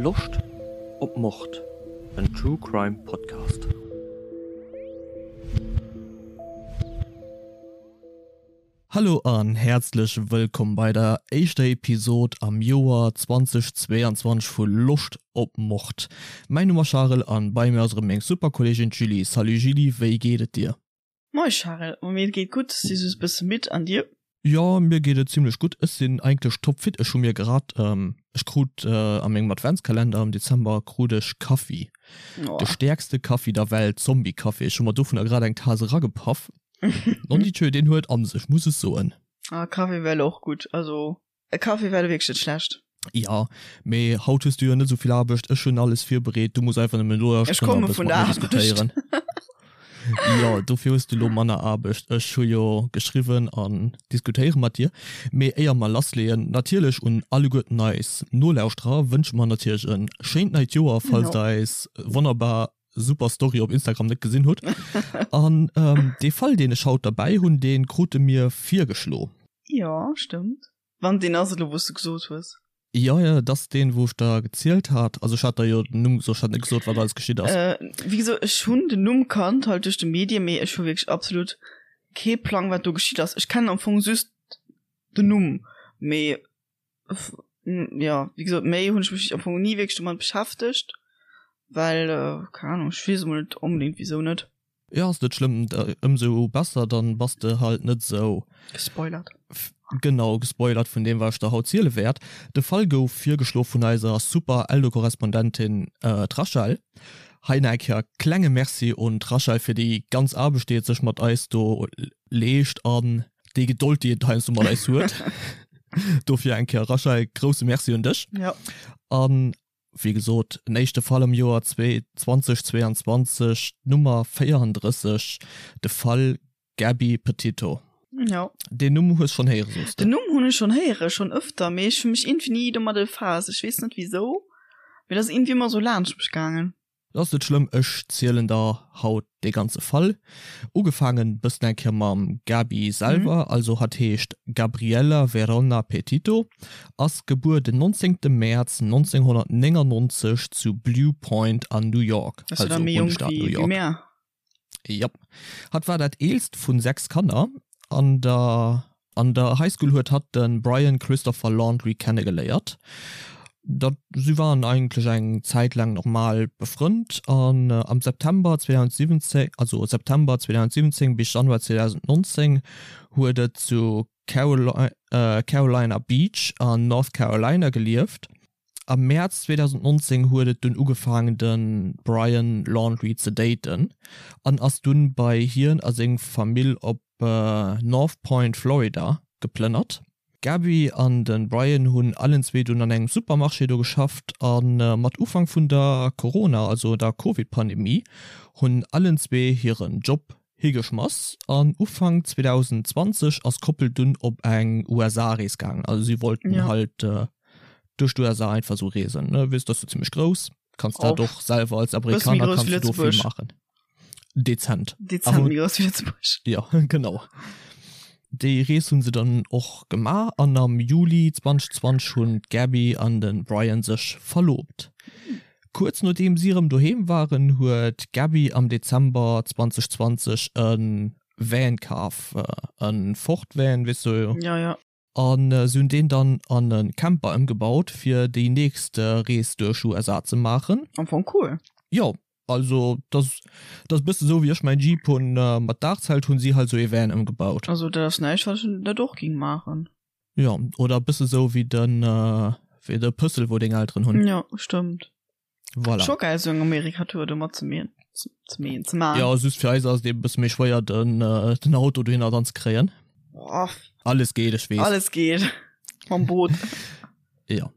Loscht op Mord? En True Crime Podcast. Hallo an häerzlech wëllkomm bei der éischter Episod am Joer 2022 vu Loscht op Mord. Mäin Numm ass Charel an bei mir ass erëm meng super Kolleegin d'Julie. Salut Julie, wéi geet et dir? Moin Charel, ma mir geet gutt, si just bësse midd, an dir? Jo mir geet et zimlech gutt, ech sinn eigentlech topfit, ech hu mir grad, ech krut a mengem Adventskalender am Dezember krut ech Kaffi, de stäerkste Kaffi der Welt, Zombie-Kaffi, ech hu mer dovunner grad eng Tas eragepaff, nondidjö deen huet an sech, muss ech soen. Ah Kaffi wär elo och gutt, also E Café wär wierklech net schlecht. Jo, mee haut hues du jo net esou vill Aarbecht. Ech hunn alles virbereet, du muss einfach nëmmen elo Ech komme vun der Aarbecht. Diskutéieren. Jo, dofir hues du elo manner Aarbecht. Ech hu jo geschriwwen an diskutéiere mat dir. Mee éier mer lassleeën, natierlech un alleguerten eis Nolauschterer wënsche mer natierlech e schéint neit Joer, falls der eis wonnerbar super Story op Instagram net gesinn hutt. An dee Fall, deen ech haut derbäi hunn, dee krute mir virgeschlo. Jo, stëmmt. Wann deen ass elo, wou s de gesot hues. Jo, jo, dat ass deen, wou ech der gezielt hat. Also ech hat der jo den Numm gesot, ech hat net gesot, wat alles geschitt ass. Wéi gesot, ech hunn den Numm kannt, halt duerch de Medien, mee ech hu wierklech absolut kee Plang, wat do geschitt ass. Ech kennen am Fong just den Numm, mee jo, wéi gesot, méi hunn ech mech am Fong ni wierklech domat beschäftegt, well, keng Ahnung, ech weess emol net onbedéngt, wisou net. Jo ass net schlëmm, ëmsou besser, dann bass de halt net sou. Gespoilert. Genau, gespoilert vun deem wat ech der haut ziele wäert. De Fall gouf virgeschlo vun eiser super Eldo-Korrespondentin d'Rachel. Hei nach eng Kéier klenge Merci un d'Rachel fir déi ganz Aarbecht déi et sech mat eis do leescht an déi Gedold déi et heiansdo mat eis huet. Dofir eng Kéier Rachel, grousse Merci un dech. Jo. An Wéi gesot, en éischte Fall am Joer 2022, d'Nummer 34, de Fall Gabby Petito. Jo. Deen Numm hues schonn héiere, soos de? Den Numm hunn ech schonn héiere, schonn ëfter, mee ech hu mech iergendwéi ni domat befaasst. Ech weess net wisou, mee dat ass iergendwéi ëmmer esou laanscht mech gaangen. Dat ass net schlëmm, ech zielen der haut dee ganze Fall. Ugefaangen bëssen eng Kéier mam Gaby selwer, also hatt heescht Gabriella Verona Petito, ass gebuer den 19 Mäerz 1999 zu Blue Point an New York, also Bundesstaat New York. Jop. Hatt war dat eelst vun 6 Kanner. An der an der High School huet hatt de Brian Christopher Laundrie kennegeléiert. Dat si waren eigentlech eng Zäit laang normal befrënnt an am September 2017, also September 2017 bis Januar 2019 huet et zu Carolina Beach an North Carolina gelieft. Am Mäerz 2019 huet et dunn ugefaangen de Brian Laundrie ze daten an ass dunn bei hien a seng Famill op North Point, Florida geplënnert. D'Gabby an de Brian hunn allenzwee dunn an engem Supermarché do geschafft a mat Ufank vun der Corona, also der Covid-Pandemie, hunn allenzwee hiren Job higeschmass an Ufank 2020 ass d'Koppel dunn op eng USA-Rees gaangen. Also si wollten ja. halt äh, duerch d'USA einfach so reesen. Ne? Weess, dat ass jo zimmlech grouss. Kanns dat och selwer als Amerikaner kannst du do vill maachen. Dezent. Dezent méi grouss wéi Lëtzebuerg. Ja, genau. Déi Rees hunn se dann och gemaach an am Juli 2020 hunn d'Gabby an de Brian sech verlobt. Kuerz nodeem si erëm doheem waren, huet d'Gabby am Dezember 2020 e Van kaf, e Ford Van, weess du? Ja, ja. A si hunn deen dann an e Camper ëmgebaut, fir déi nächst Rees duerch USA ze maachen. Am Fong cool. Jo, also dat ass e bësse sou wéi ech mäin Jeep hunn mat Daachzelt, hunn si halt sou ee Van ëmgebaut. Also dat ass näischt, wat ech net och géing maachen. Jo, oder e bësse sou wéi de wéi de Pëssel wou deng Elteren hunn. Jo, stëmmt. Voilà. Scho geil sou eng Amerikatour do mat ze meen, ze meen, ze maan. Jo, just fir eis ass et eben e bësse méi schwéier den den Auto dohinner dann ze kréien. Boah. Alles geet, ech weess. Alles geet. Mam Boot. Jo,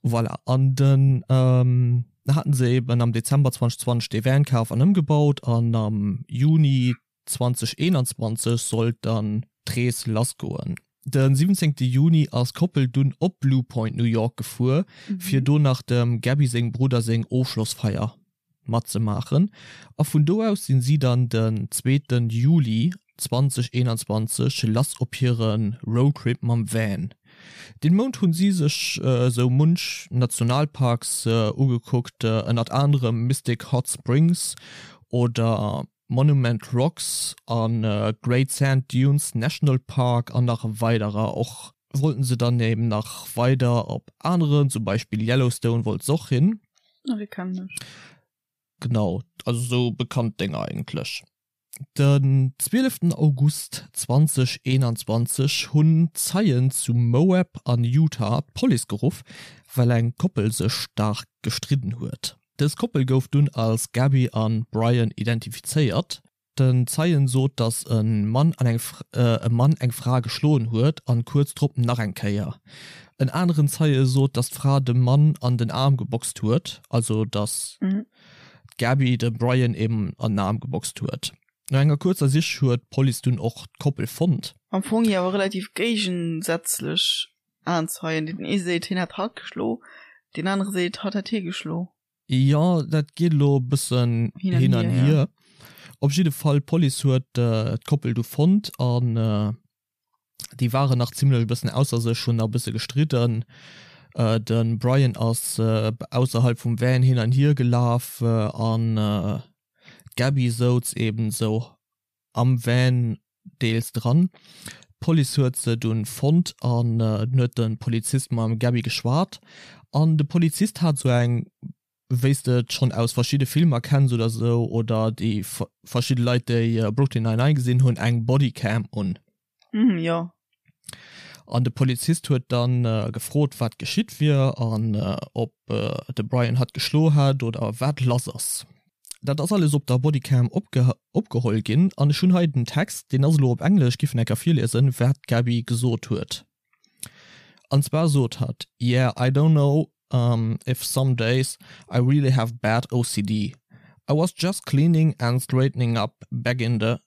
voilà. An den ähm, haten se eben am Dezember 2020 dee Van kaf an ëmgebaut an am Juni 2021 sollt dann d'Rees lassgoen. De 17 Juni ass d'Koppel dunn op Blue Point, New York gefuer, fir do nach dem Gabby sengem Brudder seng Ofschlossfeier matzemaachen a vun do aus sinn si dann den zweeten Juli 2021 lass op hire Roadtrip mam Van. Deen Mount hunn si sech sou munch Nationalparks ugekuckt, ënnert anerem Mystic Hot Springs oder Monument Rocks a Great Sand Dunes National Park an nach weiderer. Och wollten se dann eben nach weider op aneren, zum Beispill Yellowstone wollt se och hin. Ah, déi kennen ech. Genau, also sou bekannt Dénger eigentlech. Den 12 August 2021 hunn Zeien zu Moab an Utah d'Police geruff, well eng Koppel sech staark gestridden huet. Dës Koppel gouf dunn als Gabby an Brian identifizéiert. Den Zeien sot, datt e Mann an eng e Mann eng Fra geschloen huet an kuerz drop nach eng Kéier. En aneren Zeie sot, datt d'Fra dem Mann an den Aarm geboxt huet, also datt d'Gabby de Brian eben an den Aarm geboxt huet. No enger kuerzer Sich huet d'Police dunn och d'Koppel fonnt. Am Fong jo awer relativ géigensätzlech Aenzeien, deen ee seet hien hätt hatt geschlo, deen anere seet hatt hätt hie geschlo. Jo, dat geet elo e bëssen hin an hier. Op jidde Fall, d'Police huet d'Koppel du fonnt an déi waren nach zimmlech e bëssen ausser sech, hunn nach e bësse gestridden. De Brian ass ausserhalb vum Van hin an hier gelaf an d'Gabby souz eben esou am Van deels dran. D'Police huet se dunn fonnt an dunn huet de Polizist mam Gabby geschwat an de Polizist hat sou eng, wéi s de et schonn aus verschidde Filmer kenns oder sou oder déi verschidde Leit déi Brooklyn Nine-Nine gesinn hunn, eng Bodycam un. Mhm, jo. An de Polizist huet dann gefrot wat geschitt wier an ob de Brian hatt geschlo hätt oder wat lass ass. Dat ass alles op der Bodycam opgeholl ginn an ech hunn hei den Text, deen ass elo op Englesch, giff en enker virliesen, wat d'Gaby gesot huet. An zwar sot hatt, Yeah, I don't know if some days I really have bad OCD. I was just cleaning and straightening up back in the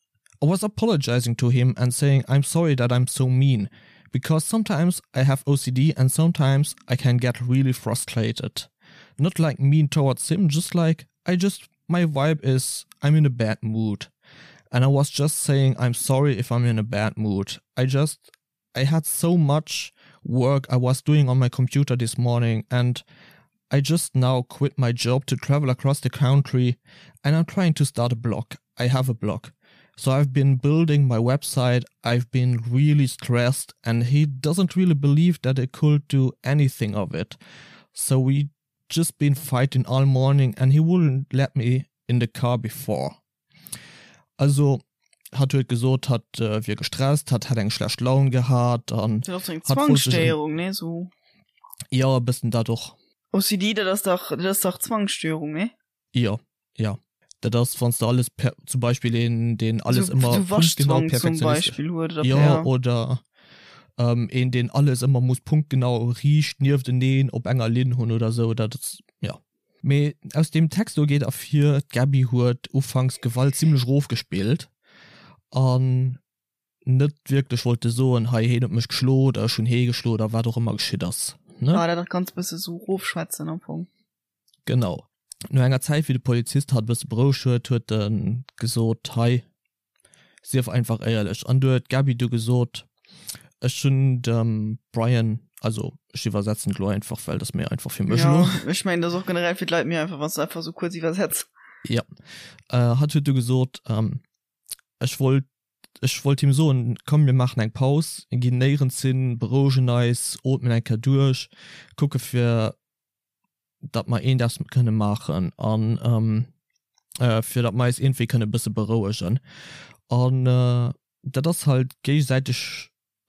I was apologizing to him and saying I'm sorry that I'm so mean because sometimes I have OCD and sometimes I can get really frustrated. Not like mean towards him, just like I just my vibe is I'm in a bad mood. And I was just saying I'm sorry if I'm in a bad mood. I just I had so much work I was doing on my computer this morning and I just now quit my job to travel across the country and I'm trying to start a blog. I have a blog. So I've been building my website. I've been really stressed and he doesn't really believe that I could do anything of it. So we just been fighting all morning and he wouldn't let me in the car before. Also hatt huet gesot, hatt wier gestresst, hatt hätt eng schlecht Laun gehat an Dat ass eng Zwangsstéierung, nee sou? Jo, e bëssen dat och. OCD, dat ass dach, dat ass dach Zwangsstéierung, nee? Jo, jo. Dat ass, wann s de alles per, zum Beispill een, deen alles ëmmer punktgenau Waschzwang zum perfektionistesch. Beispill huet oder Jo, per. oder een, deen alles ëmmer muss punktgenau riicht niefteneen op enger Linn hunn oder sou, dat ass, jo. Mee aus deem Text do geet ervir, d'Gaby huet ufanks d'Gewalt zimlech erofgespillt an net wierklech wollte soen, hei heen huet mech geschlo oder ech hunn hee geschlo oder wat och ëmmer geschitt ass, ne? Ah, dat ganz bësse sou erofschwätzen am Fong. Genau. No enger Zäit, wéi de Polizist hatt e bësse berouegt huet, huet e gesot, hei, Sief einfach éierlech. An du huet d'Gaby du gesot, Ech hunn dem Brian, also ech iwwersetzen et elo einfach, well dat ass méi einfach fir mech elo. Jo, ech mengen, dat ass och generell fir d'Leit méi einfach, wann s de einfach esou kuerz iwwersetz. Jo. Hatt huet du gesot, Ech wollt, ech wollt him soen, komm mir maachen eng Paus, ginn néierens hin, berouegen eis, ootmen eng Kéier duerch, kucke fir datt mer eent eppes kënne maachen an fir datt mer eis iergendwéi kënne bësse berouegen. An dat ass halt géigesäiteg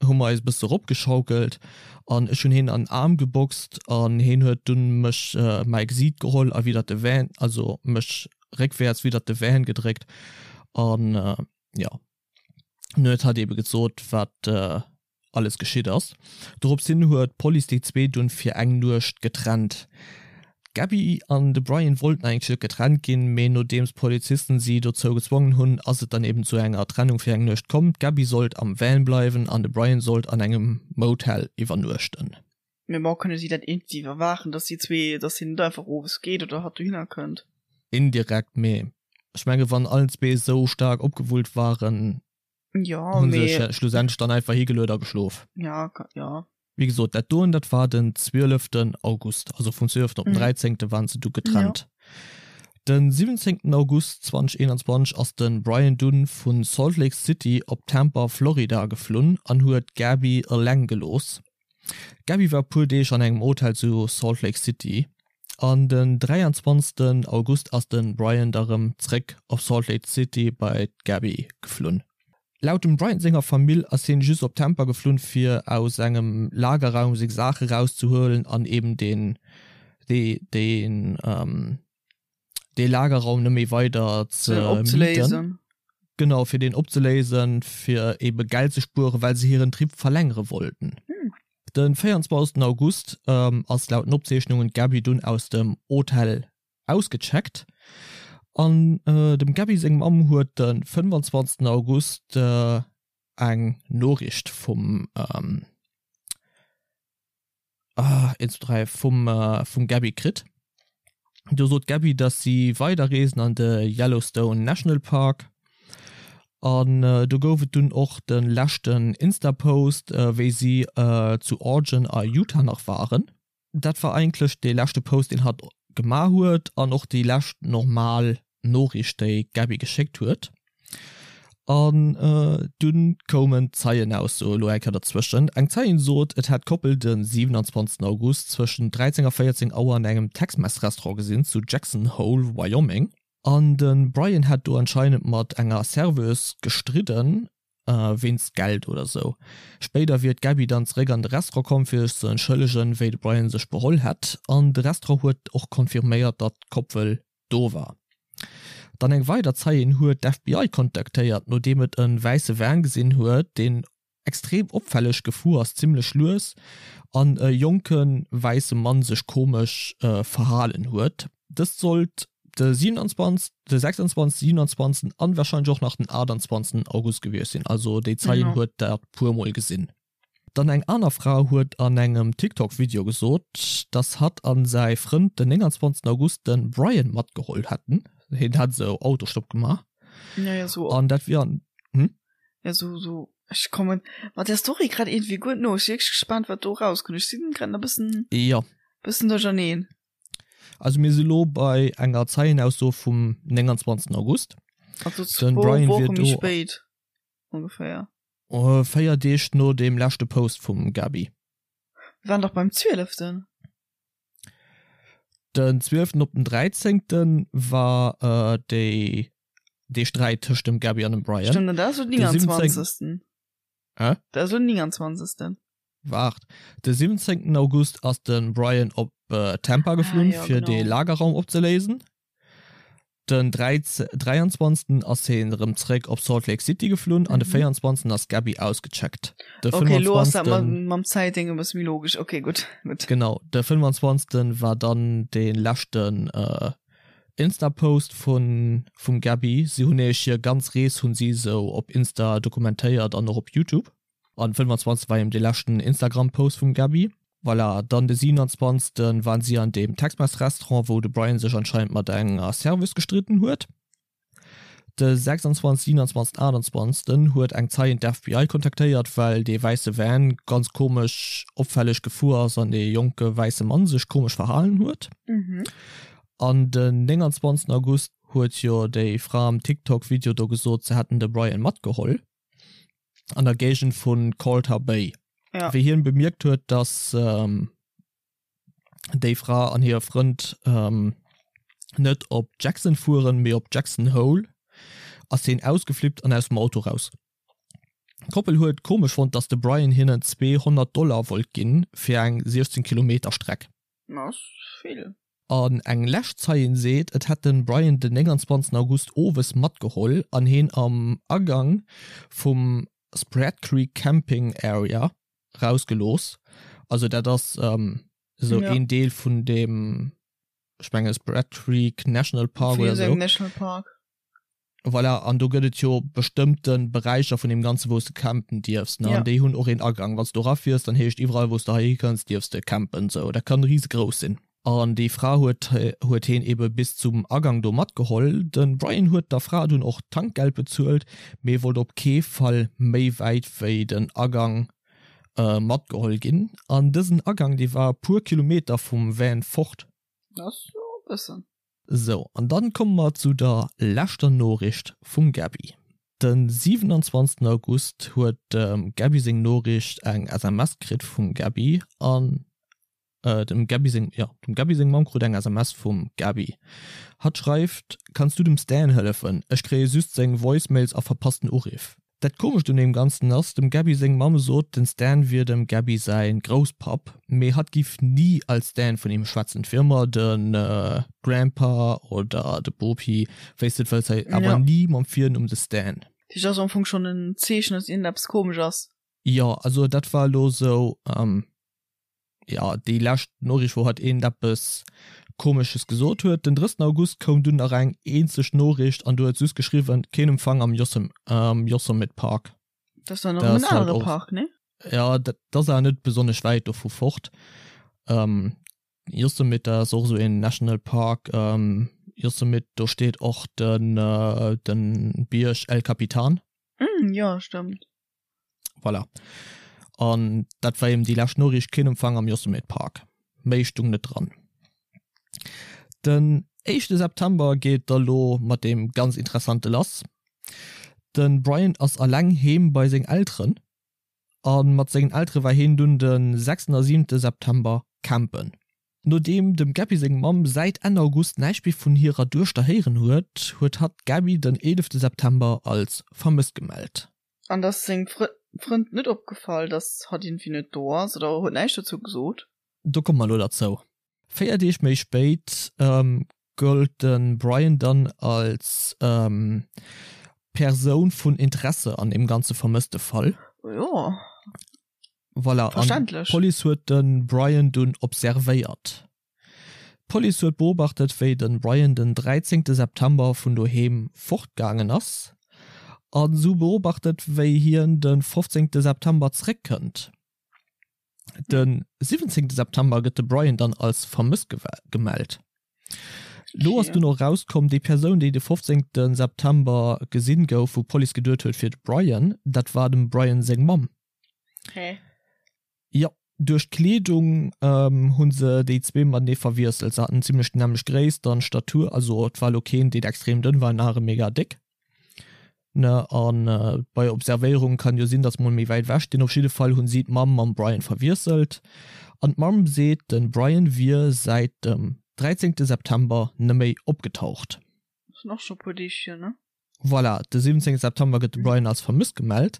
hu mer eis e bësse eropgeschaukelt an ech hunn heen an den Aarm geboxt an heen huet dunn mech mäi Gesiit geholl a widder de Van, also mech réckwäerts widder de Van gedréckt an jo. Dunn huet hatt eebe gesot wat alles geschitt ass. Dorops hin huet d'Police déi zwee dunn fir eng Nuecht getrennt. D'Gabby an de Brian wollten eigentlech net getrennt ginn, mee nodeems d'Polizisten si dozou gezwongen hunn, ass et dann eben zu enger Trennung fir eng Nuecht komm. D'Gabby sollt am Van bleiwen an de Brian sollt an engem Motel iwwernuechten. Mee bon, kënne si dat iergendwéi iwwerwaachen, dass déi zwee, dass hien net einfach owes geet oder hatt dohinner kënnt? Indirekt, mee ech menge wann allen zwee esou staark opgewullt waren, Jo, Hun sech schlussendlech dann einfach higeluet a geschlof. Ja, ja. Wéi gesot, dat doen, dat war den 12. August, also vum 12. op den 13. waren se du getrennt. Den 17. August 2021 ass de Brian dunn vu Salt Lake City op Tampa, Florida geflunn an huet d'Gabby eleng gelooss. D'Gabby war e puer Deeg an engem Hotel zu Salt Lake City an den 23. August ass de Brian da rëm zréck op Salt Lake City bei d'Gabby geflunn. Laut dem Bryant senger Famill ass hien just op Tampa geflunn fir aus engem Lagerraum seng Saache rauszehuelen an eben deen deen dee Lagerraum net méi weider ze mieten. Genau, fir deen opzeléisen, fir ebe Geld ze spueren, well se hiren Trip verlängere wollten. Den 24 August ass laut den Opzeechnungen d'Gabby dunn aus dem Hotel Ausgecheckt an dem Gaby seng Mamm huet de 25 August eng Noriicht vum ah 1 2 3 vum vum Gaby kritt. Do sot d'Gaby, dass si weider reesen an de Yellowstone National Park an do gouf et dunn och de leschten Insta-Post wéi si zu Organ a Utah nach waren. Dat war eigentlech dee leschte Post deen hatt gemaach huet an och déi lescht normal Noriicht déi d'Gabby geschéckt huet. An dunn koumen d'Zeienaussoe elo eng Kéier derzwëschen. Eng Zeien sot, et hätt d'Koppel de 27 August zwëschen 13 a 14 Auer an engem Tex-Mex-Restaurant gesinn zu Jackson Hole, Wyoming. An de Brian hätt do anscheinend mat enger Serveuse gestridden Wéinst Geld oder sou. Spéider wier d'Gabby dann zeréck an de Restaurant komm fir sech ze entschëllegen, wéi de Brian sech beholl hätt. An de Restaurant huet och confirméiert, datt d'Koppel do war. Dann eng weider Zeien huet d'FBI kontaktéiert, nodeem et e wäisse Van gesinn huet, deen extrem opfälleg gefuer ass, zimmlech lues, an e jonke wäisse Mann sech komesch verhalen huet. Dëst sollt de 27, de 26, 27 an wahrscheinlech och nach den 28 August gewiescht sinn. Also déi Zeien huet dat puer mol gesinn. Dann eng aner Fra huet an engem TikTok Video gesot, dass hatt an säi Frënd den 29 August den Brian matgeholl hätten. Hien hätt esou Autostopp gemaach. Ja, ja, so. An dat wier an, hm? Ja, so, so. Ech kommen mat der Story grad irgendwie guer no. Ech si wierklech gespaant, wat do rauskënnt. Ech sinn grad nach bëssen, Ja. bëssen duercherneen. Also mir si lo bei enger Zeienausso vum 29. August. Also Den Brian wier do spéit ongeféier. 4 Deeg no deem leschte Post vum Gaby. Mir waren dach beim 12. Den 12. op den 13. war déi dee Sträit tëscht dem Gaby an dem Brian. Stëmmt, an dat ass lo den 29. Hä? Dat ass lo den 29. Waart, de 17 August ass de Brian op Tampa geflunn, ah, ja, fir de Lagerraum opzeléisen. Den 23 ass hien erëm zréck op Salt Lake City geflunn an de 24 mhm. ass Gabby ausgecheckt. De okay, lo ass dat mam Zäitding e bësse méi logesch. Okay, gutt. Gutt. Genau, de 25 war dann de leschten äh, Insta-Post vun vum Gabby. Si hunn nämlech hir ganz Rees hunn si sou op Insta dokumentéiert an och op Youtube. An 25 war eben dee leschten Instagram Post vum Gaby. Voilà, dann de 27 waren si an deem Tex-Mex Restaurant wou de Brian sech anscheinend mat enger Serveuse gestridden huet. De 26, 27, 28 huet eng Zeien d'FBI kontaktéiert well dee wäisse Van ganz komesch opfälleg gefuer ass an dee jonke wäisse Mann sech komesch verhalen huet. An den 29 August huet jo déi Fra am TikTok Video do gesot se hätten de Brian matgeholl. an der Géigend vun Colter Bay. Ja. Wéi hien bemierkt huet, dass ähm, déi Fra an hire Frënd ähm, net op Jackson fueren, mee op Jackson Hole, ass hien ausgeflippt an aus dem Auto raus. D'Koppel huet komesch fonnt, dass de Brian hinnen 200 Dollar wollt ginn fir eng 16 Kilometer Streck. Dat ass vill. An eng lescht Zeien seet, et hätt den Brian den 29 August owes matgeholl an heen am Agang vum Spread Creek Camping Area rausgelooss. Also dat ass esou een Deel vun deem, ech mengen Spread Creek National Park oder esou. National Park. Voilà, an do gëtt et jo bestëmmte Beräicher vun deem Ganzen, wou s de campen dierfs, ne? An déi hunn och een Agang. Wann s du erafiers, dann heescht iwwerall, wou s de heihi kënns, dierfs de campen. Sou, dat kann risegrouss sinn. An déi Fra huet huet heen ebe bis zum Agang do matgeholl. De Brian huet der Fra dunn och d'Tankgeld bezuelt, mee wollt op kee Fall méi wäit wéi den Agang. Matgeholl ginn. An dësen Agang, dee war e puer Kilometer vum Van fort. Dat ass jo e bëssen. Sou, an dann komme mer zu der leschter Noriicht vum Gaby. Den 27 August huet dem Gaby seng Noriicht eng SMS kritt vum Gaby an dem Gaby seng, jo, dem Gaby seng Mamm krut eng SMS vum Gaby. Hatt schreift, Kanns du dem Stan hëllefen? Ech kréie just seng Voicemails a verpassten Uriff. Dat komescht un deem Ganzen ass, dem Gaby seng Mamm sot, den Stan wier dem Gaby säi Grousspapp, mee hatt giff ni als Stan vun him schwätzen, et wier ëmmer de Grandpa oder de Bopi, wéi s de et wëlls, hei awer ni mam Virnumm de Stan. Dat heescht, ass am Fong schonn en Zeechen, dass iergendeppes komesch ass. Jo, also dat war elo sou. Jo, déi lescht Noriicht, wou hatt eent eppes Komesches gesot huet. Den 30. August koum dunn nach eng eenzeg Noriicht an do huet se just geschriwwen, Keen Empfang am Yosemite Park. Dat ass dann nach en anere Park, ne? Jo, dat ass awer net besonnesch wäit dovu fort. Yosemite, dat ass och esou een National Park. Yosemite, do steet och de Bierg El Capitan. Jo, stëmmt. Voilà. An dat war eben déi lescht Noriicht, keen Empfang am Yosemite Park. Méi stung net dran. Den éischte September geet da lo mat deem ganz Interessante lass. De Brian ass alleng heem bei seng Elteren a mat sengen Eltere war heen dunn de sechsten a siwente September campen. Nodeem dem Gabby seng Mamm säit Enn August näischt méi vun hirer Duechter héieren huet, huet hatt d'Gabby den eelefte September als vermësst gemellt. An ass sengem Frënd net opgefall, dass hatt iergendwéi net do ass oder huet näischt dozou gesot? Do komme mer elo derzou. 4 Deeg méi spéit gëllt de Brian dann als Persoun vun Interesse an deem ganze vermësste Fall. Jo. Voilà, an d'Police huet de Brian dunn observéiert. D'Police huet beobachtet, wéi de Brian den 13 September vun doheem fortgaangen ass a se hu beobachtet, wéi hien de 15 September zeréckkënnt. De 17 September gëtt de Brian dann als vermësst gemellt. Lo ass dunn och erauskomm, déi Persoun, déi de 15 September gesinn gouf, wou d'Police geduet huet, wier de Brian, dat war dem Brian seng Mamm. Hä? Jo, duerch d'Kleedung hu se déi zwee matenee verwiesselt. Se haten zimmlech déi nämmlecht Gréisst an Statur, also et war elo keen, deen extrem dënn war, en anere mega déck. Ne, a bei Observéierung kann jo sinn, datt se mol méi wäit ewech stinn. Op jidde Fall hunn si d'Mamm mam Brian verwiesselt an d'Mamm seet, de Brian wier säit dem 13 September neméi opgetaucht. Sinn och scho puer Deeg hier, ne? Voilà, de 17 September gëtt de Brian als vermësst gemellt.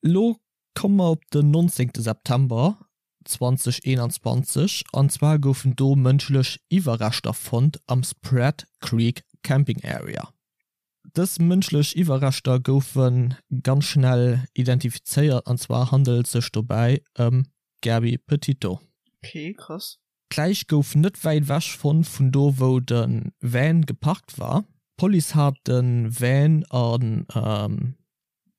Lo Komme mer op den 19 September 2021, an zwar goufen do mënschlech Iwwerreschter fonnt am Spread Creek Camping Area. Dës mënschlech Iwwerreschter goufe ganz schnell identifizéiert, an zwar handelt et sech dobäi ëm d'Gabby Petito. Ok, krass. D'Läich gouf net wäit ewech fonnt vun do wou de Van geparkt war. D'Police hat de Van an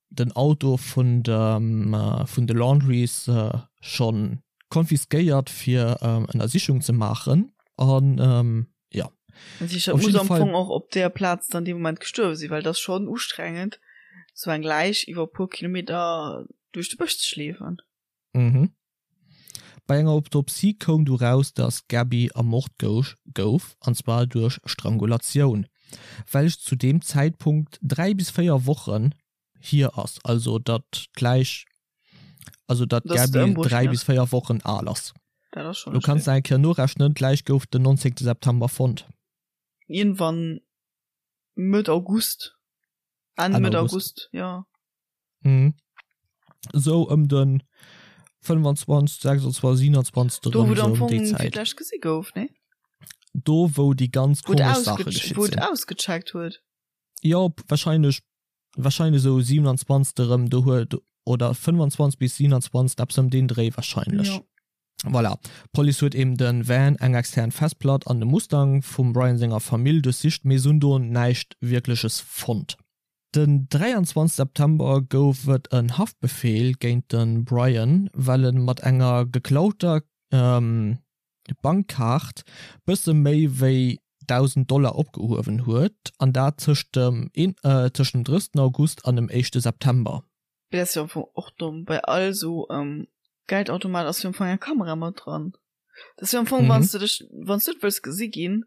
den Auto vun dem vun de Laundries schonn konfiskéiert fir Ënnersichung ze maachen an jo. Dat heescht, dat muss am Fong och op där Plaz dann dee Moment gestuerwe sinn, well et ass schonn ustrengend, sou eng Läich iwwer e puer Kilometer duerch de Bësch ze schleefen. Mhm. Bei enger Autopsie koum du raus, dass d'Gabby ermort gouf, an zwar duerch Strangulatioun, welch zu deem Zäitpunkt 3 bis 4 Wochen hier ass, also datt d'Läich, also datt d'Gabby 3 bis 4 Wochen al ass. Du kanns nach eng Kéier norechnen, d'Läich gouf den 19 September fonnt. Iergendwann Mëtt August, Enn Mëtt August, jo. Mhm. Sou ëm den 25, 26, 27 Do wou am Fong fir d'lescht gesi gouf, ne? Do wou déi ganz komesch Saache geschitt sinn. Wou et ausgecheckt huet. Jo, wahrscheinlech, wahrscheinlech sou 27 erëm do huet, oder 25 bis 27, eppes ëm deen Dréi wahrscheinlech. Jo. Voilà, d'Police huet eben de Van, eng extern Festplatt an de Mustang vum Brian senger Famill duerchsicht, mee se hunn do näischt Wierkleches fonnt. Den 23 September gouf et en Haftbefeel géint de Brian, well e mat enger geklauter Bankkaart bësse méi wéi 1.000 Dollar opgehuewen huet, an dat tëscht dem 30 August an dem éischte September. Dat ass jo am Fong och domm. Bei all sou Geldautomat ass jo am Fong eng Kamera mat dran. Dat ass jo am Fong, wann s de dech, wann s du net wëlls gesi ginn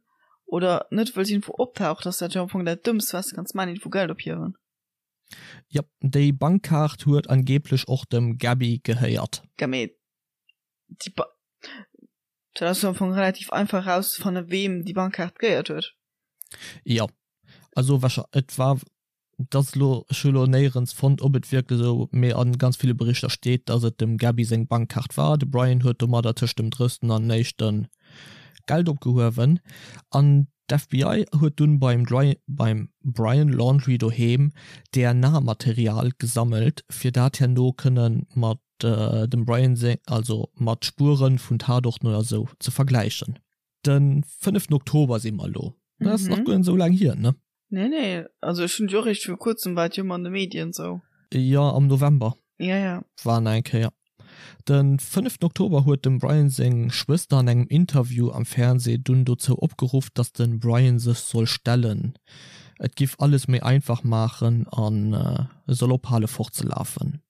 oder net wëlls iergendwou optauchen, ass dat jo am Fong dat Dëmmst, wat s de kanns maachen, iergendwou Geld ophiewen. Jop, déi Bankkaart huet angeeblech och dem Gabby gehéiert. Ja, mee déi Ba, dat ass jo am Fong relativ einfach erauszefannen, weem déi Bankkaart gehéiert huet. Jo, also wahrschei, et war Et ass elo, ech hu elo néierens fonnt, ob et wierklech esou, mee a ganz ville Berichter steet, datt et dem Gabby seng Bankkaart war. De Brian huet domadder tëscht dem drëssten an éischte Geld opgehuewen an d'FBI huet dunn beim beim Brian Laundrie doheem DNA-Material gesammelt, fir dat herno kënne mat dem Brian seng, also mat Spuere vun Tatorten oder esou ze vergläichen. De fënneften Oktober si mer elo. Dat ass nach guer net esou laang hier, ne? Nee, nee, also ech hunn jo eréischt viru kuerzem war et jo ëmmer an de Medien sou. Jo, am November. Ja, ja. War nach eng Kéier. De fënneften Oktober huet dem Brian seng Schwëster an engem Interview am Fernsee dunn dozou opgeruff, datt de Brian sech soll stellen. Et giff alles méi einfach maachen an e soll ophale fortzelafen.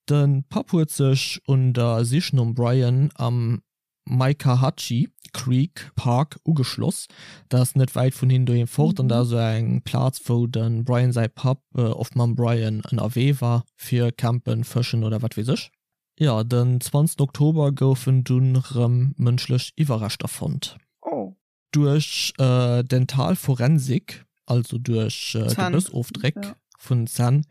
De Papp huet sech un der Sich nom Brian am Mykahatchee Creek Park ugeschloss. Dat ass net wäit vun hinnen doheem fort an dat ass esou eng Plaz wou de Brian säi Papp oft mam Brian ënnerwee war fir campen, fëschen oder wat weess ech. Jo, den 20 Oktober goufen dunn rëm mënschlech Iwwerreschter fonnt. Oh. Duerch dental Forensik, also duerch Gebëssofdréck vun Zänn,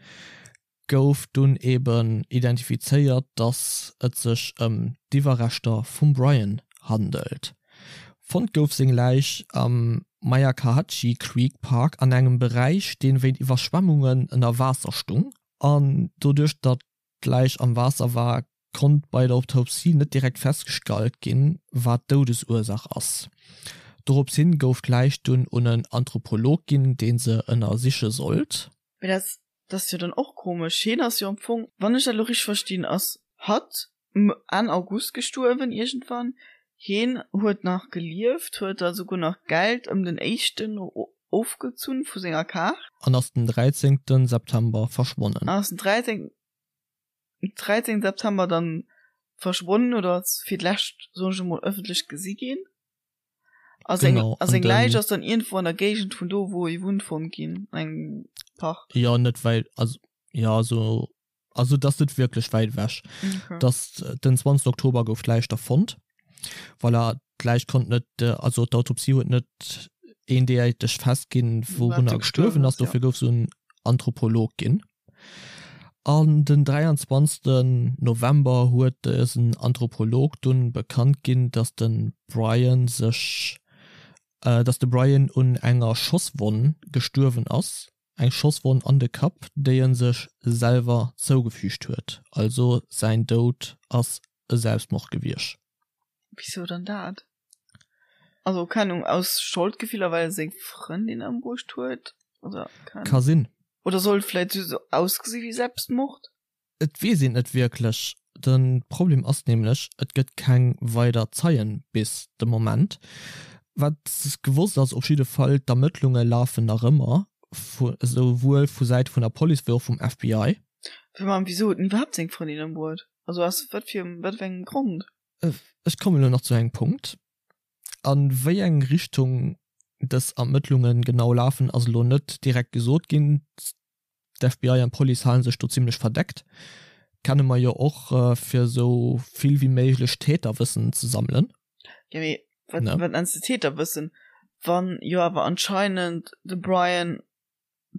gouf dunn eben identifizéiert, datt et sech ëm d'Iwwerreschter vum Brian handelt. Fonnt gouf seng Läich am Myakkahatchee Creek Park an engem Beräich, dee wéint Iwwerschwemmungen ënner Waasser stung. An doduerch, datt d'Läich am Waasser war, konnt bei der Autopsie net direkt festgestallt ginn, wat d'Doudesursaach ass. Dorops hin gouf d'Läich dunn un en Anthropolog ginn, dee se ënnersiche sollt. Mee dat ass jo dann och komesch. Hien ass jo am Fong, wann ech dat elo richteg verstinn, ass hatt Enn August gestuerwen iergendwann. Hien huet nach gelieft, huet da souguer nach Geld ëm den éischten ofgezunn vu senger Kaart. An ass den 13 September verschwonnen. An ass den 13. 13. September dann verschwonnen oder ass fir d'lescht, soen ech emol, ëffentlech gesi ginn. A seng, Genau, a an seng Läich den. ass dann iergendwou an der Géigend vun do, wou e wunnt, fonnt ginn, an engem Park. Jo, net wäit, also, jo, esou, also et ass net wierklech wäit ewech. Okay. Dass den 20. Oktober gouf d'Läich da fonnt. Voilà, d'Läich konnt net, also d'Autopsie huet net eendeiteg festginn, Wat wourunner e gestuerwen gestuerwen ass, ass, jo. dofir gouf se un Anthropolog ginn. An den 23 November huet dësen Anthropolog dunn bekannt ginn, datt de Brian sech datt de Brian un enger Schosswonn gestuerwen ass, eng Schosswonn an de Kapp, déi en sech selwer zougefügt huet. Also säin Doud ass e Selbstmord gewiescht. Wisou dann dat? Also keng Ahnung, aus Scholdgefiller well e seng Frëndin ëmbruecht huet oder keng Ka sinn. Oder soll et vläit sou ausgesi wéi Selbstmord? Et weess een net wierklech. De Problem ass nämlech, et gëtt keng weider Zeien bis de Moment. Wat gewosst ass op jidde Fall, d'Ermëttlunge lafen nach ëmmer, esouwuel vu Säite vun der Police wéi och vum FBI. Mä wisou huet en iwwerhaapt seng Frëndin ëmbruet? Also aus wat fir wat fir engem Grond? Ech kommen elo nach zu engem Punkt. A wéi eng Richtung dës Ermëttlunge genau lafen, ass elo net direkt gesot ginn. D'FBI an d'Police hale sech do zimmlech verdeckt. Kenne mer jo och, fir esou vill wéi méiglech Täterwëssen ze sammelen. Jo, mee wat, wat nenns de Täterwëssen, wann jo awer anscheinend de Brian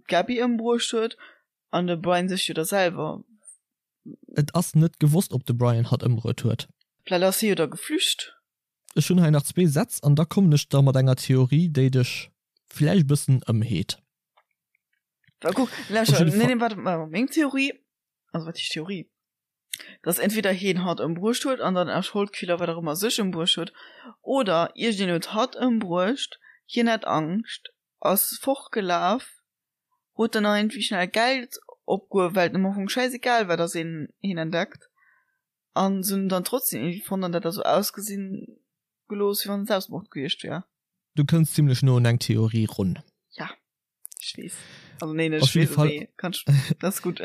d'Gabby ëmbruecht huet an de Brian sech jo da selwer Et ass net gewosst, ob de Brian hatt ëmbruet huet. Vläit ass hie jo da geflücht. Ech hunn hei nach zwee Sätz an da kommen ech da mat enger Theorie, déi dech vläicht e bëssen ëmheet. Well kuck, Op lauschter, jidde nee, Fall. nee, waart, waart, meng Theorie, also wat heescht Theorie, dass entweder hien hatt ëmbruecht huet an dann aus Scholdgefiller, wat och ëmmer, sech ëmbruecht huet, oder iergendeen huet hatt ëmbruecht, hien hat Angscht, ass fortgelaf, huet dann nach irgendwie schnell Geld opgehuewen, well et em am Fong schäisegal war, dass een hien entdeckt, an se hunn en dann trotzdem irgendwie fonnt an dat da sou ausgesinn gelooss, wéi wann et Selbstmord gewiescht wär. Du kënns zimlech no un eng Theorie run. Ja, ech weess. Also nee, net Op ech jidde weess, Fall. mee kann ech, dat ass gutt.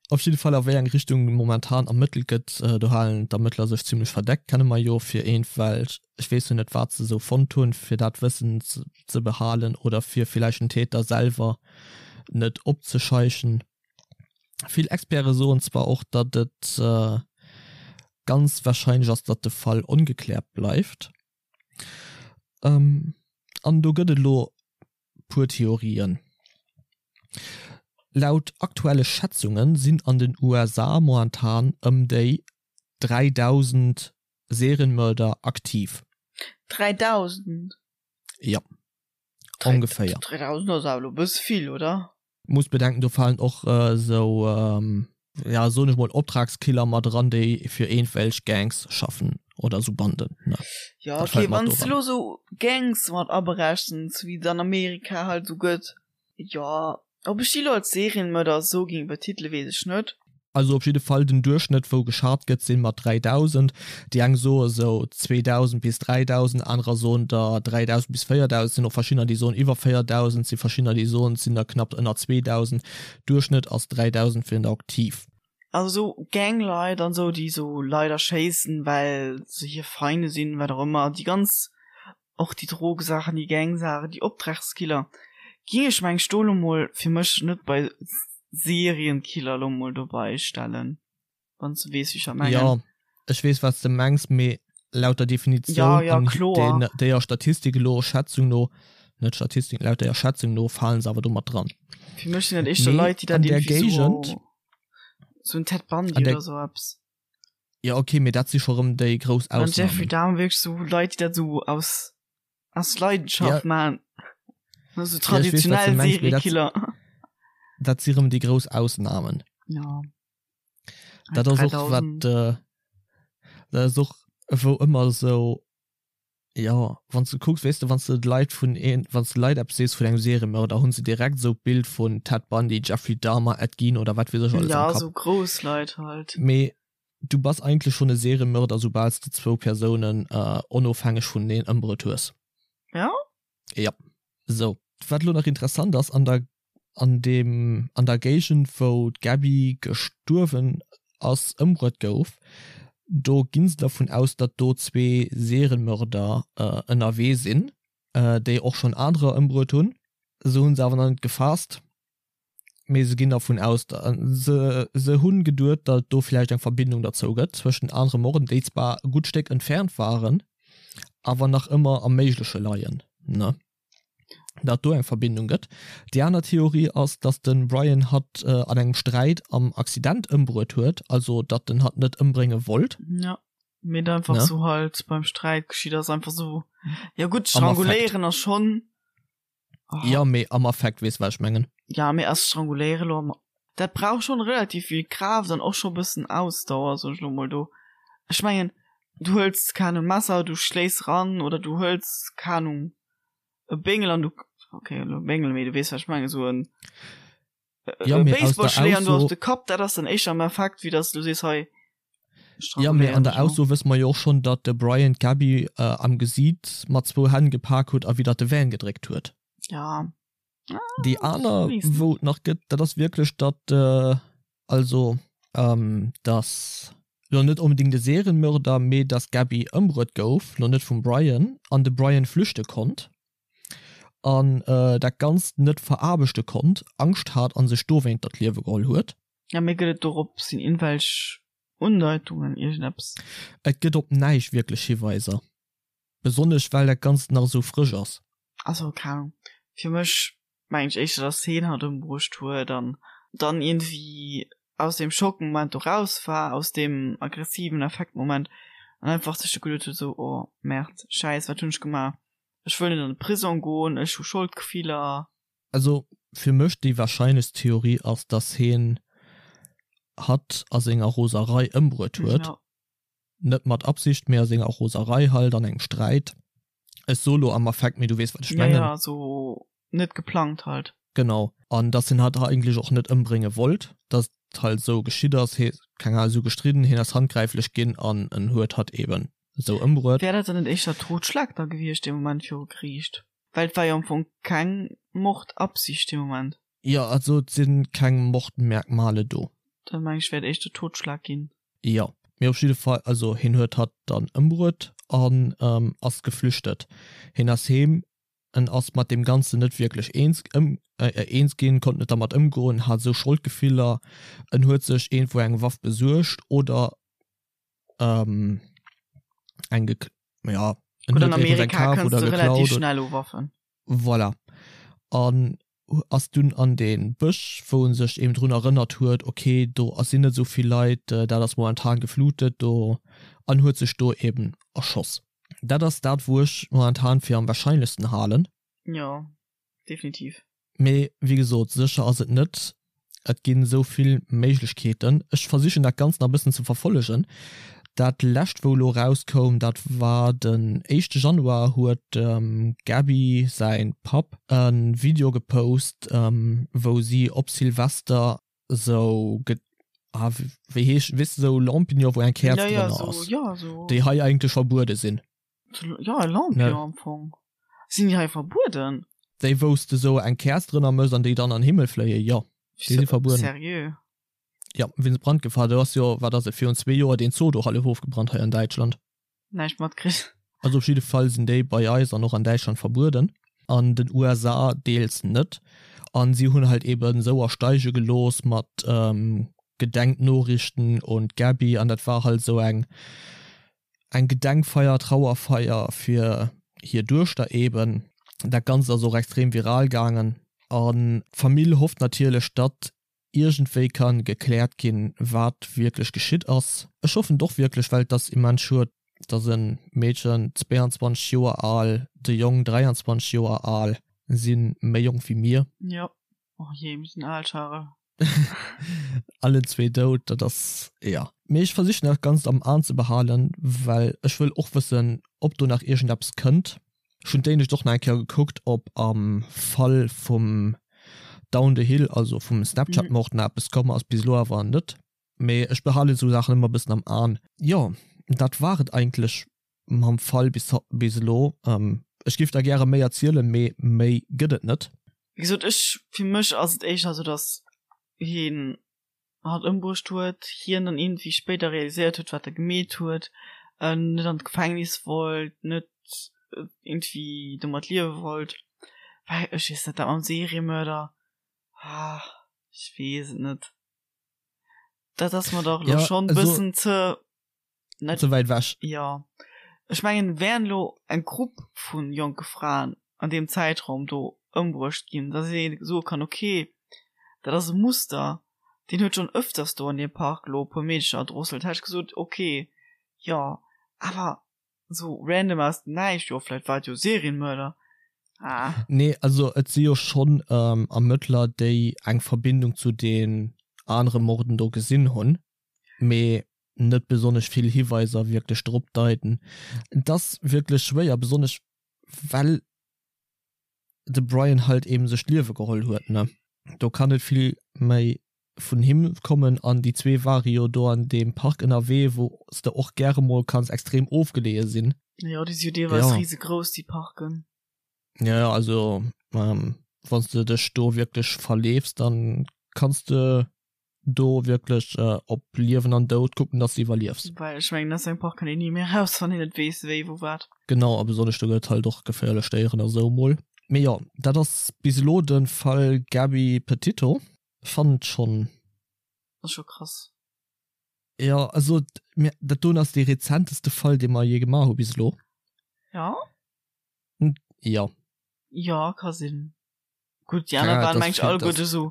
Op jidde Fall a wéi eng Richtung momentan ermëttelt gëtt, do halen d'Ermëttler sech zimmlech verdeckt, kenne mer jo fir eent, well ech weess jo net wat se esou fonnt hunn, fir dat Wëssen ze behalen oder fir villäicht den Täter selwer net opzescheichen. Vill Experte soen zwar och, datt et ganz warscheinlech ass, datt de Fall ongekläert bleift. An do gëtt et elo puer Theorien. Laut aktuelle Schätzunge sinn an den USA momentan ëm déi 3.000 Serienmörder aktiv. 3.000? Jo, ongeféier. 3.000 ass awer elo e bësse vill, oder? Muss bedenken, do falen och esou, ja soen ech mol, Optragskiller mat eran, déi fir iergendwelch Gangs schaffen oder esou Banden, ne? Jo, ok, wann s de elo esou Gangs mat aberechens, wéi et an Amerika halt esou gëtt, jo. Ob ech déi elo als Serienmörder esou géing betitele weess ech net. Also op jidde Fall den Duerchschnëtt wou geschat gëtt sinn mat 3000. Déi eng soe sou 2000 bis 3000, anerer soen der 3000 bis 4000, sinn och verschiddener déi soen iwwer 4000, si verschiddener déi soen et sinn der knapp ënner 2000. Duerchschnëtt ass 3000 fir den aktiv. Also sou Gangleit an sou déi sou Leit erschéissen well se hir Feinde sinn, wat och ëmmer, déi ganz och déi Drogesaachen, déi Gangsaachen, déi Optragskiller, ging ech meng ech do lo mol fir mech net bei Serienkiller lo mol dobei stellen, wann s de weess wéi ech dat mengen. Jo, ech weess wat s de mengs, mee laut der Definitioun ja, ja, an kloer. den déier Statistik elo, Schätzung no, net Statistik, laut déier Schätzung no falen se awer do mat dran. Fir mech sinn dat éischter Mee Leit, déi dat an där iergendwéi sou, Géigend, sou en Ted Bundy an där oder sou eppes. Ja okay, mee dat si scho rëm déi grouss An Jeffrey Ausnahmen. Dahmer wierklech sou Leit, déi dat sou aus aus Leidenschaft Ja. maachen. Also Ja, ech weess, wat du traditionell mengs, mee dat, Seriekiller. dat si rëm déi grouss Ausnahmen. Ja. Dat ass och wat 3000. äh, dat ass och wou ëmmer sou Jo, wann s de kucks, weess de, wann s de de Leit vun een, wann s de Leit eppes sees vun engem Seriemörder, hunn se direkt esou d'Bild vun Ted Bundy, Jeffrey Dahmer, Ed Gein oder wat weess ech alles Ja, am Kapp. esou grouss Leit halt. Mee du bass eigentlech schonn e Seriemörder, soubal s de zwou Persounen onofhängeg vuneneen ëmbruet hues. Ja? Jo. Sou, wat elo nach interessant ass, an der an deem an der Géigend wou d'Gabby gestuerwen ass ëmbruet gouf, do ginn se dervun aus, datt do zwee Serienmörder ënnerwee sinn, déi och schonn anerer ëmbruet hunn. Se hunn se awer nach net gefaasst, mee se ginn dervun aus, se se hunn geduet, datt et do vläicht eng Verbindung derzou gëtt zwëschen anere Morden, déi zwar e gutt Stéck entfernt waren, awer nach ëmmer am Méigleche leien, ne? datt do eng Verbindung gëtt. Déi aner Theorie ass, datt de Brian hatt an engem Sträit am Accident ëmbruet huet, also datt en hatt net ëmbrénge wollt. Ja, mee et einfach Ne? sou halt beim Sträit geschitt ass, einfach sou. Ja gutt, Am Affekt. stranguléieren ass schonn. Oh. Ja, mee am Affekt, weess wat ech mengen. Ja, mee ass stranguléieren elo am. Dat brauch schonn relativ vill Kraaft an och scho bëssen Ausdauer, soen ech elo mol do. Ech mengen, du hëls, keng Ahnung, Messer, du schléis ran oder du hëls, keng Ahnung, e Béngel an du, okay, elo Béngel, mee du weess, wat ech mengen, esou en Ja, e mee aus der Baseballschléier an du Ausso op de Kapp, dat ass dann éischter am Affekt, wéi dass du sees, hei, Ja, mee an stranguléieren der ech elo. Ausso wësse mer jo och schonn, datt de Brian d'Gabby am Gesiit mat zwou Hänn gepak huet a widder de Van gedréckt huet. Ja. Déi aner, wou et nach gëtt, dat ass wierklech, datt, also datt lo net onbedéngt e Serienmörder, mee datt d'Gabby ëmbruet gouf, lo net vum Brian, an de Brian flüchte konnt an dat Ganzt net veraarbechte konnt, Angscht hat a sech dowéinter d'Liewe geholl huet. Ja, mee gëtt et dorop sinn iergendwelch Undeitungen, iergendeppes? Et gëtt op näischt wierklech Hiweiser. Besonnesch well dat Ganzt nach esou frësch ass. Also keng Ahnung, fir mech mengen ech éischter dass heen hatt ëmbruecht huet an dann iergendwéi aus deem Schockmoment do raus war, aus deem aggressiven Affektmoment an einfach sech du geduet huet esou, oh Merde, Schäiss, wat hunn ech gemaach, ech wëll net an de Prisong goen, ech hu Scholdgefiller. Also fir mech déi wahrscheinlechst Theorie ass, dass heen hatt a senger Roserei ëmbruet huet. Net mat Absicht, mee a senger Roserei halt, an engem Sträit. Ech soe lo am Affekt, mee du weess, wat ech mengen. Ja, ja, sou net geplangt halt. Genau. An dass hien hatt eigentlech och net ëmbrénge wollt, dass et halt esou geschitt ass, hie, keng Ahnung, esou gestridden, hien ass handgräiflech ginn an en huet hatt eben esou ëmbruet. Wär dat dann net éischter Totschlag da gewiescht dee Moment viru Geriicht? Well et war jo am Fong keng Mordabsicht dee Moment. Jo, also et si keng Mordmerkmale do. Dat meng ech wäert éischter Totschlag ginn. Jo, mee op jidde Fall, also hien huet hatt dann ëmbruet an ass geflüchtet. Hien ass heem, en ass mat deem Ganzen net wierklech eens eens ginn, konnt net dermat ëmgoen, hat esou Scholdgefiller, en huet sech iergendwou eng Waff besuergt oder eng gek ja, en Gutt, an huet iergendwou eng Amerika kaf kënns oder de relativ geklaut. schnell u Waffen. Voilà. An ass dunn an dee Bësch, wou en sech eben drun erënnert huet, ok, do sinn net esou vill Leit, dat ass momentan geflutet do, an huet sech do eben erschoss. Dat ass dat, wou ech momentan fir am wahrscheinlechsten halen. Jo, definitiv. Mee wéi gesot, sécher ass et net. Et ginn esou vill Méiglechkeeten. Ech versichen dat Ganzt nach e bëssen ze verfollegen. Dat lescht wou elo erauskoum, dat war den éischte Januar huet dem Gaby säin Papp e Video gepost, wou si op Silvester sou ah wéi heesch weess de sou Lampignon wou eng Käerz drënner ass, déi hei eigentlech verbuede sinn. Jo, e Lampion am Fong. Sinn déi hei verbueden? Déi wou s de sou eng Käerz drënner mëss an déi dann an Himmel fléien, jo, déi si verbueden. Seriö? Jo, wéinst Brandgefahr. Do ass jo, wat ass et, virun zwee Joer deen Zoo do hallef ofgebrannt hei an Däitschland. Näischt matkritt. Also op jidde Fall sinn déi bei eis an och an Däitschland verbueden, an den USA deels net. An si hunn halt eben sou ersteige gelooss mat Gedenknoriichten un d'Gaby an dat war halt sou eng eng Gedenkfeier, Trauerfeier fir hir Duechter eben. Dat Ganzt ass och extrem viral gaangen an d'Famill hofft natierlech, datt iergendwéi ka gekläert ginn, wat wierklech geschitt ass. Ech hoffen et och wierklech, well et ass immens schued, datt e Meedchen, 22 Joer al, de Jong 23 Joer al, si méi jonk wéi mir. Jo, oh jee, mir sinn al, Charel. Allen zwee dout, dat ass, jo. Mee ech versichen dat Ganzt am An ze behalen, well ech wëll och wëssen, ob do nach iergendeppes kënnt. Ech hunn d'éinescht och nach eng Kéier gekuckt, ob am Fall vum Down the Hill, also vum Snapchat-Mord, nach eppes komm ass. Bis elo awer net. Mee ech behalen esou Saachen ëmmer e bëssen am An. Jo, dat war et eigentlech mam Fall bis bis elo. Ech géif der gäre méi erzielen, mee méi gëtt et net. Wéi gesot, ech, fir mech ass et éischter esou, datt hien hatt ëmbruecht huet, hien dann iergendwéi spéider realiséiert huet, wat e gemeet huet, net an d'Gefängnis wollt, net iergendwéi domat liewe wollt, well ech weess net, dat mam Seriemörder, ah, ech weess et net, dat ass mer dach elo schonn e bëssen ze. Net ze wäit ewech. Jo, ech mengen, wären elo eng Grupp vu jonke Fraen an deem Zäitraum do ëmbruecht ginn, datt ee soe kann, ok, dat ass e Muster, deen huet schonn ëfters do an deem Park elo e puer Meedecher erdrosselt, hätt ech gesot, ok, jo, awer esou random aus dem Näischt, jo, vläicht war et jo e Serienmörder, ah. Nee, also et si jo schonn Ermëttler, déi eng Verbindung zu den anere Morden do gesinn hunn, mee net besonnesch vill Hiweiser wierklech drop deiten. Et ass wierklech schwéier, besonnesch well de Brian halt eben sech d'Liewe geholl huet, ne? Do kann net vill méi vun him kommen an déi zwee ware jo do an deem Park ënnerwee, wou s de och gäre mol kanns extrem ofgeleeë sinn. Jo, déi si jo deelweis risegrouss, déi Parken. Jo, jo, also wann s de dech do wierklech verleefs, dann kanns de do wierklech op Liewen an Doud kucken, dass de iwwerliefs. Well ech mengen, aus engem Park kënnt een ni méi eraus, wann een net weess, wéi, wou, wat. Genau, a besonnesch do gëtt et halt och geféierlech Déieren a sou mol. Mee jo, dat ass bis elo de Fall Gabby Petito. Fannen et schonn. Ass scho krass. Jo, also dat doen ass dee rezenteste Fall, dee mer jee gemaach hu bis elo. Jo? Jo. Jo, ka sinn. Gutt, déi aner waren, meng ech, alleguerte esou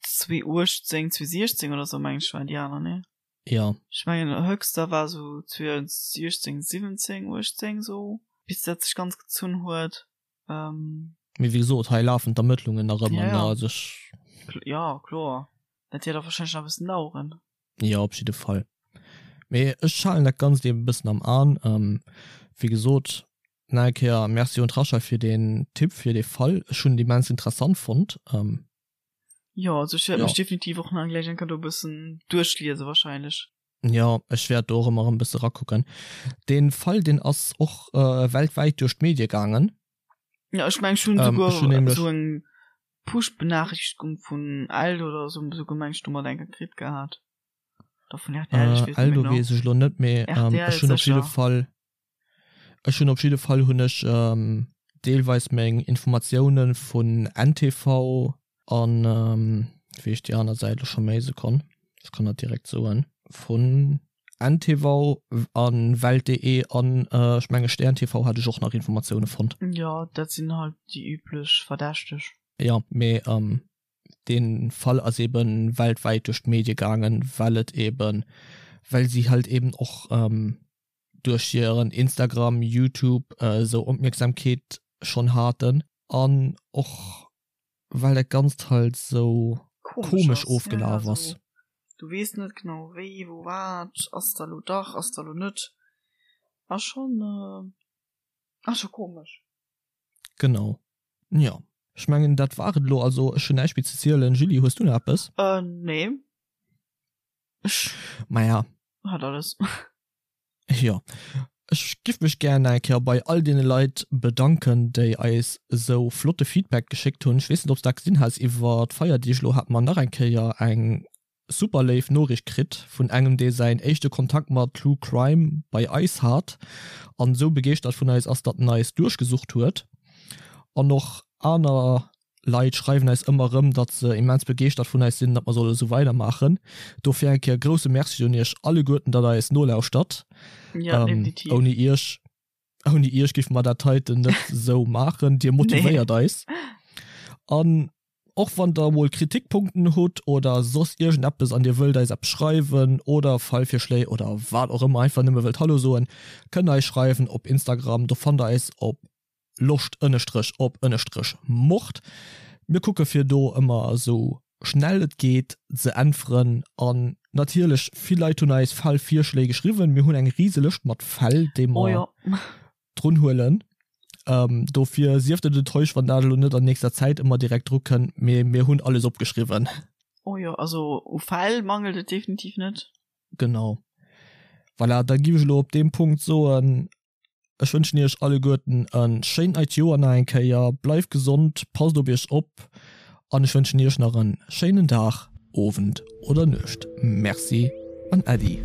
2018, 2016 oder sou, meng ech, waren déi aner, ne? Jo. Ech mengen, Höxter war esou 2016, 17, 18 esou, bis dat sech ganz gezunn huet. Mee wéi gesot, hei lafen d'Ermëttlungen nach ëmmer, ne? Also ech. Jo, kloer. Dat wäert och warscheinlech nach e bëssen daueren. Jo, op jidde Fall. Mee ech halen dat Ganzt eben e bëssen am An. Wéi gesot, nach eng Kéier Merci un d'Rachel fir deen Tipp, fir dee Fall. Ech hunn et immens interessant fonnt. Jo, also ech wäert mech definitiv och nach gläich eng Kéier do e bëssen duerchliese wahrscheinlech. Jo, ech wäert do och ëmmer erëm e bësse rakucken. Dee Fall, deen ass och weltwäit duerch d'Medie gaangen. Jo, ech mengen, ech hunn esouguer esou eng Push-Benachrichtigung vun Eld oder esou, esouguer meng ech domat eng Kéier kritt gehat. Oder vun RTL, ech weess net méi genau. Eldo weess ech elo net, mee ech hunn op jidde Fall, ech hunn op jidde Fall hunn ech deelweis meng Informatioune vun NTV an, wéi heescht déi aner Säit elo scho méi, Sekonn, ech kann dat direkt soen, vun NTV an Welt.de an ech menge Stern TV hat ech och nach Informatioune fonnt. Jo, dat sinn halt déi üblech Verdächteg. Jo, mee dee Fall ass eben weltwäit duerch d'Medie gaangen, well et eben, well si halt eben och duerch hiren Instagram, Youtube esou Opmierksamkeet schonn haten an och well dat Ganzt halt esou komesch ofgelaf ass. Du weess net genau wéi, wou, wat, ass da lo dach, ass da lo net, ass schonn, ass scho komesch. Genau. Jo, ech mengen dat war et elo. Also ech hunn näischt méi ze zielen. Julie, hues du nach eppes? Äh, nee. Ech Maja. hat alles. Jo. Ech giff mech gär nach eng Kéier bei all deene Leit bedanken, déi eis esou flotte Feedback geschéckt hunn. Ech weess net, ob s dat gesinn has, iwwer d'Feierdeeg elo hate mer nach eng Kéier eng super léif Noriicht kritt vun engem dee säin éischte Kontakt mat True Crime bei eis hat an esou begeeschtert vun eis ass, datt en eis duerchgesucht huet. An och aner Leit schreiwen eis ëmmer erëm, datt se immens begeeschtert vun eis sinn, datt mer solle esou weidermaachen. Dofir eng Kéier grousse Merci un iech alleguerten, datt der eis nolauschtert. Ja, definitiv. Ouni iech, ouni iech géife mer dat heiten net esou maachen. Dir motivéiert eis. An Och wann der mol Kritikpunkten hutt oder soss iergendeppes an dir wëllt eis eppes schreiwen oder Fallvirschléi oder wat och ëmmer, einfach nëmme wëllt Hallo soen, kënnt der eis schreiwen op Instagram. Do fannt der eis op loscht ënnestrech op ënnestrech mord. Mir kucke fir do ëmmer esou schnell et geet ze äntweren an natierlech vill Leit hunn eis Fallvirschléi geschriwwen. Mir hunn eng rise Lëscht mat Fäll déi mer drun huelen. Ähm, dofir sieft net enttäuscht, wann dat elo net an nächster Zäit ëmmer direkt dru kënnt, mee mir hunn alles opgeschriwwen. Oh jo, also u Fäll mangelt et definitiv net. Genau. Voilà, da giff ech elo op deem Punkt soen, ech wënschen iech alleguerten e schéint neit Joer nach eng Kéier. Bleift gesond, passt op iech op an ech wënschen iech nach e schéinen Dag, Owend oder Nuecht. Merci an Äddi.